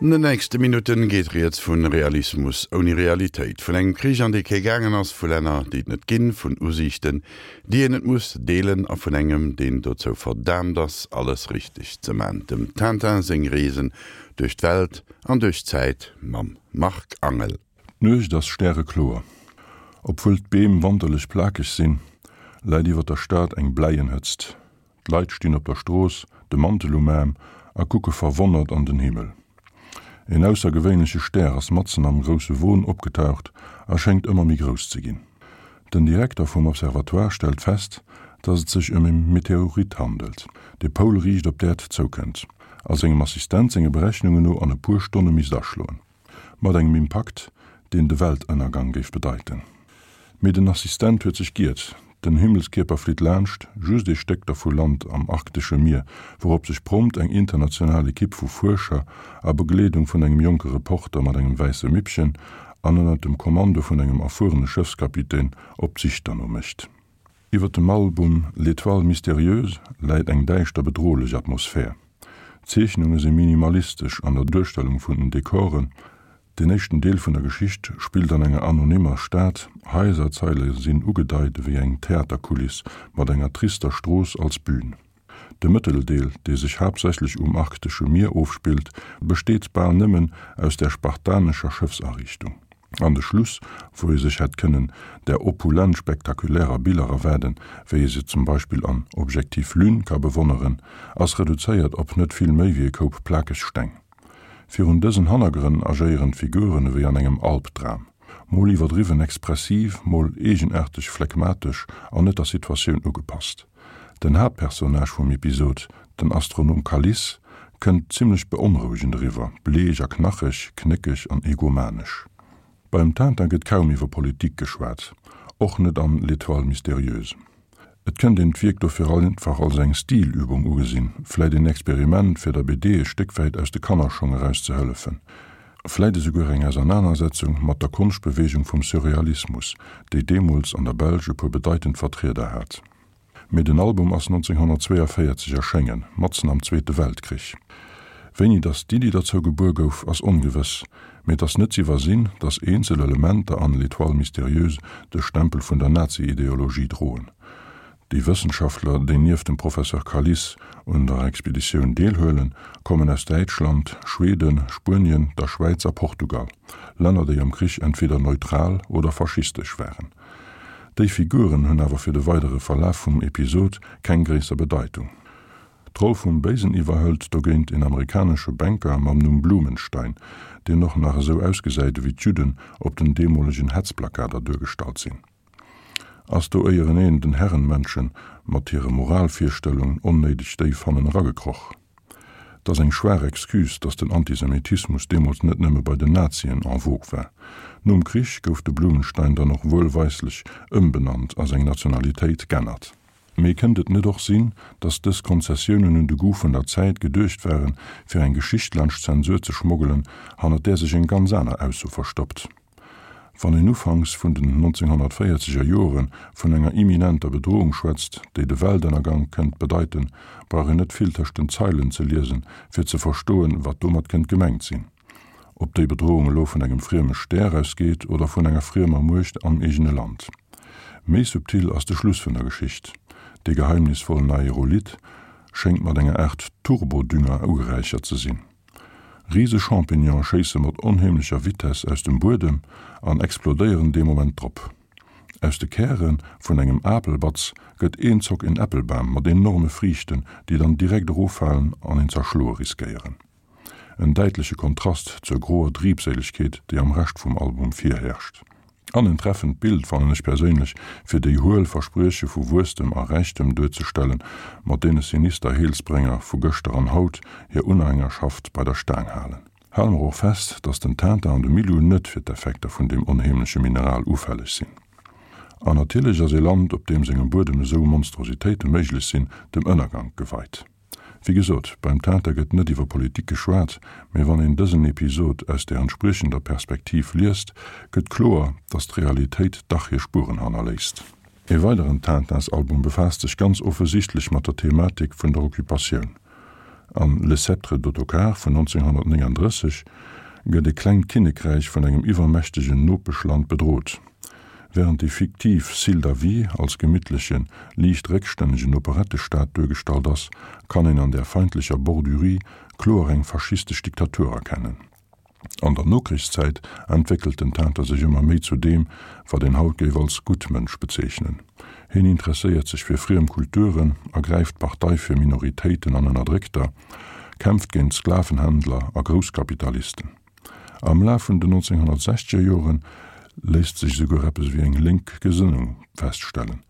An den nächste Minutten geet rieds vun Realismus ouni Realitéit, vun engem Krich an dee kee gaangen ass, vu Länner déi et net ginn, vun Usiichten déi een net muss deelen a vun engem deen dozou verdaamt ass alles richteg ze man, dem Tintin seng Reesen duerch d'Welt an duerch d'Zäit mam Marc Angel. D'Nuecht ass stärekloer. Obwuel d'Beem wanterlech plakeg sinn, läit iwwer der Stad eng bläien Hëtzt. D'Leit stinn op der Strooss, de Mantel um Aarm, a kucke verwonnert an den Himmel. En aussergewéinleche Stär ass matzen am grousse Won opgetaucht a schéngt ëmmer méi grouss ze ginn. Den Direkter vum Observatoire stellt fest, datt et sech ëm e Meteorit handelt, dee poulriicht op d'Äerd zoukënnt a sengem Assistent senge Berechnungen no an e puer Stonne misst aschloen. Mat engem Impakt, deen de Weltënnergang géif bedeiten. Mee den Assistent huet sech giert, den Himmelskierper flitt laanscht, just ee Stéck dervu lant am arktesche Mier, wourop sech prompt eng international Ekipp vu Fuerscher a Begleedung vun engem jonke Reporter mat engem wäisse Mippchen an ënnert dem Kommando vun engem erfuerene Schëffskapitän op d'Sich derno mécht. Iwwer dem Album L'Étoile mystérieuse läit eng däischter bedrohlech Atmosphär. D'Zeechnunge si minimalistesch an der Duerstellung vun den Dekoren. Den éischten Deel vun der Geschicht spillt an enger anonymmer Stad, Haiserzeile sinn ugedeit ewéi eng Theaterkuliss mat enger trister Strooss als Bühn. De Mëtteldeel, dee sech haaptsächlech um arktesche Mier ofspillt, besteet bal nëmmen aus der spartanescher Schëffsariichtung. An de Schluss, wou ee sech hätt kënnen där opulent spektakulärer Biller erwaarden, wéi ee se zum Beispill an Objectif Lune ka bewonneren, ass reduzéiert op net vill méi wéi e Koup plakeg Steng. Virun dësen Hannergrënn agéieren d'Figuren ewéi an engem Albdram, mol iwwerdriwwen expressiv, mol eegenaarteg phlegmatesch an net der Situatioun ugepasst. Den Haaptpersonnage vum Episod, den Astronom Kaliss, kënnt zimmlech beonrouegend eriwwer, bleech a knacheg, knéckeg an egomanesch. Beim Tintin gëtt kaum iwwer Politik geschwat, och net an L'Étoile mystérieuse. Et kënnt een d'Wierk dofir einfach als eng Stilübung ugesinn, vläit een Experiment, fir der BD e Stéck wäit aus de Kannerschong eraus ze hëllefen, vläit esouguer eng Ausernanersetzung mat der Konschtbeweegung vum Surrealismus, déi deemools an der Belsch e puer bedeitend Vertrieder hat. Mee den Album ass 1942 erschéngen, matzen am Zweete Weltkrich. Wéini datt d'Iddi derzou gebuer gouf, ass ongewëss, mee et ass net z'iwwersinn, datt eenzel Elementer an L'Étoile mystérieuse de Stempel vun der Nazi-Ideologie droen. Déi Wëssenschaftler, déi nieft dem Professeur Kalis un der Expeditioun deelhuelen, kommen aus Däitschland, Schweden, Spuenien, der Schwäiz a Portugal, Länner, déi am Krich entweder neutral oder faschistesch waren. Déi Figuren hunn awer fir de weidere Verlaf vum Episod keng gréisser Bedeitung. D'Roll vum Béisen iwwerhëlt dogéint een amerikanesche Banker mam Numm Blumenstein, deen och nach esou ausgesäit ewéi d'Judden op den deemolegen Hetzplakater duergestallt sinn. Ass do éieren een den Herrenmenschen mat hire Moralvirstellungen onnéideg déif hannen eragekroch? 't ass eng schwaach Excuse, datt den Antisemitismus deemools net nëmme bei den Nazien en vogue war. Nom Krich gouf de Blumenstein dann och wuelweislech ëmbenannt a seng Nationalitéit g'ännert. Mee kënnt et net och sinn, datt dës Konzessiounen un de Goût vun der Zäit geduecht waren, fir eng Geschicht laanscht d'Zensur ze schmoggelen, hannert där sech eng ganz aner Ausso verstoppt? Wann een ufanks vun den 1940 er Jore vun enger imminenter Bedrohung schwätzt, déi de Weltënnergang kënnt bedeiten, brauch een net vill tëscht den Zeilen ze liesen, fir ze verstoen, wat domat kënnt gemengt sinn. Ob déi Bedrohung elo vun engem frieme Stär ausgeet oder vun enger friemer Muecht am eegene Land. Méi subtil ass de Schluss vun der Geschicht. Dee geheimnisvollen Aerolith schéngt mat enger Aart Turbodünger ugeräichert ze sinn. Rise Champignone schéisse mat onheemlecher Vitess aus dem Buedem an explodéieren dee Moment drop. Aus de Käre vun engem Apelbatz gëtt eenzock en Äppelbam mat enorme Friichten, déi dann direkt eroffalen an een z'erschloe riskéieren. En däitleche Kontrast zur groer Triebséilegkeet, déi am Rescht vum Album virherrscht. An en treffend Bild, fannen ech perséinlech, fir déi huel Versprieche vu Wuesstem a Räichtem duerzestellen, mat deene sinister Heelsbrénger vu gëschter an haut hir Unhängerschaft bei der Staang halen. Hale mer och fest, dass den Tintin an de Milou net fir d'Effekter vun deem onheemleche Mineral ufälleg sinn. An natierlech ass ee Land, op deem sengem Buedem esou Monstrositéite méiglech sinn, dem Ënnergank geweit. Wéi gesot, beim Tintin gëtt net iwwer Politik geschwat, mee wann een dësen Episod aus der entspriechender Perspektiv liest, gëtt kloer, datt d'Realitéit dach hir Spueren hannerléisst. Ee weideren Tintins-Album befaasst sech ganz offesichtlech mat der Thematik vun der Occupatioun. An Le Sceptre d'Ottokar vun 1939 gëtt e klengt Kinnekräich vun engem iwwermächtegen Nopeschland bedrot. Wärend déi fiktiv Syldavie als gemittlechen, liicht réckstännegen Operettestad duergestallt ass, kann een an där feindlecher Bordurie kloer eng faschistesch Diktatur erkennen. An der Nokrichszäit entwéckelt den Tintin sech ëmmer méi zu deem, wat een haut géif als Guttmënsch bezeechnen. Hien interesséiert sech fir friem Kulturen, ergräift Partei fir Minoritéiten an Ënnerdréckter, kämpft géint Sklavenhändler a Grousskapitalisten. Am Laf vun den 1960er Jore léisst sech esouguer eppes ewéi eng lénk Gesënnung feststellen,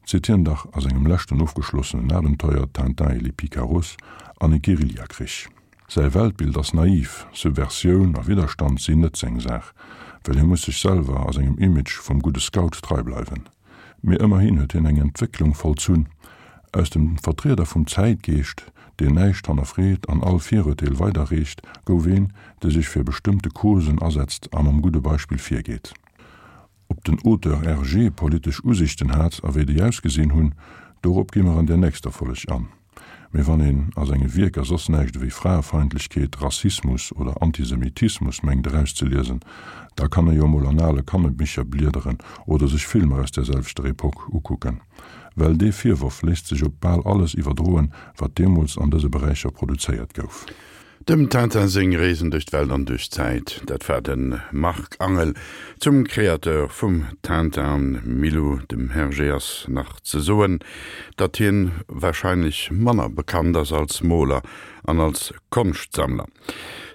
zitt hien dach a sengem leschten ofgeschlossenen Abenteuer Tintin et les Picaros an e Guerillakrich. Säi Weltbild ass naiv, Subversioun a Widderstand sinn net seng Saach, well hie muss sech selwer a sengem Image vum gudde Scout trei bleiwen. Mee ëmmerhin huet hien eng Entwécklung vollzunn, Aus dem Vertrieder vum Zäitgeescht, deen näischt hannerfreet an all Virurteel weiderreecht, gouf een, dee sech fir bestëmmte Causen asetzt a mam gudde Beispill virgeet. Ob den Auteur Hergé politesch Usichten hat a wéi déi ausgesinn hunn, dorop gi mer an der nächster Folleg an. Mee wann een a senge Wierker soss näischt ewéi Fraefeindlechkeet, Rassismus oder Antisemitismus mengt erauszeliesen, da kann e jo emol an ale Kannebicher bliederen oder sech Filmer aus där selwechter Epoque ukucken. Well dee Virworf léisst sech op bal alles iwwerdroen, wat deemools an dëse Beräicher produzéiert gouf. Dem Tintin seng Reesen duerch d'Welt an duerch d'Zäit, dat war de Marc Angel. Zum Créateur vum Tintin an Milou, dem Hergé, ass nach ze soen, datt hien warscheinlech manner bekannt ass als Moler an als Konschtsammler.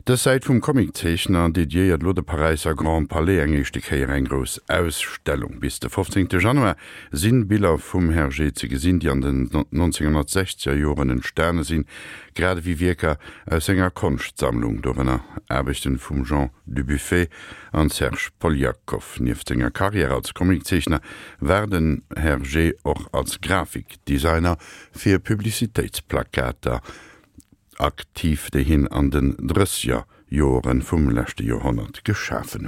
Dës Säit vum Comiczeechner dediéiert elo de Paräisser Grand Palais eng éischte Kéier eng grouss Ausstellung. Bis de 15 Januar sinn Biller vum Hergé ze gesinn, déi an den 1960er Joren entstane sinn, grad ewéi Wierker aus senger Konschtsammlung, dorënner Aarbechten vum Jean Dubuffet an Serge Poliakoff. Nieft senger Karriär als Comiczeechner war den Hergé och als Grafikdesigner fir Publicitéitsplakater aktiv, déi hien an den drësseger Joere vum leschte Joerhonnert geschafen huet.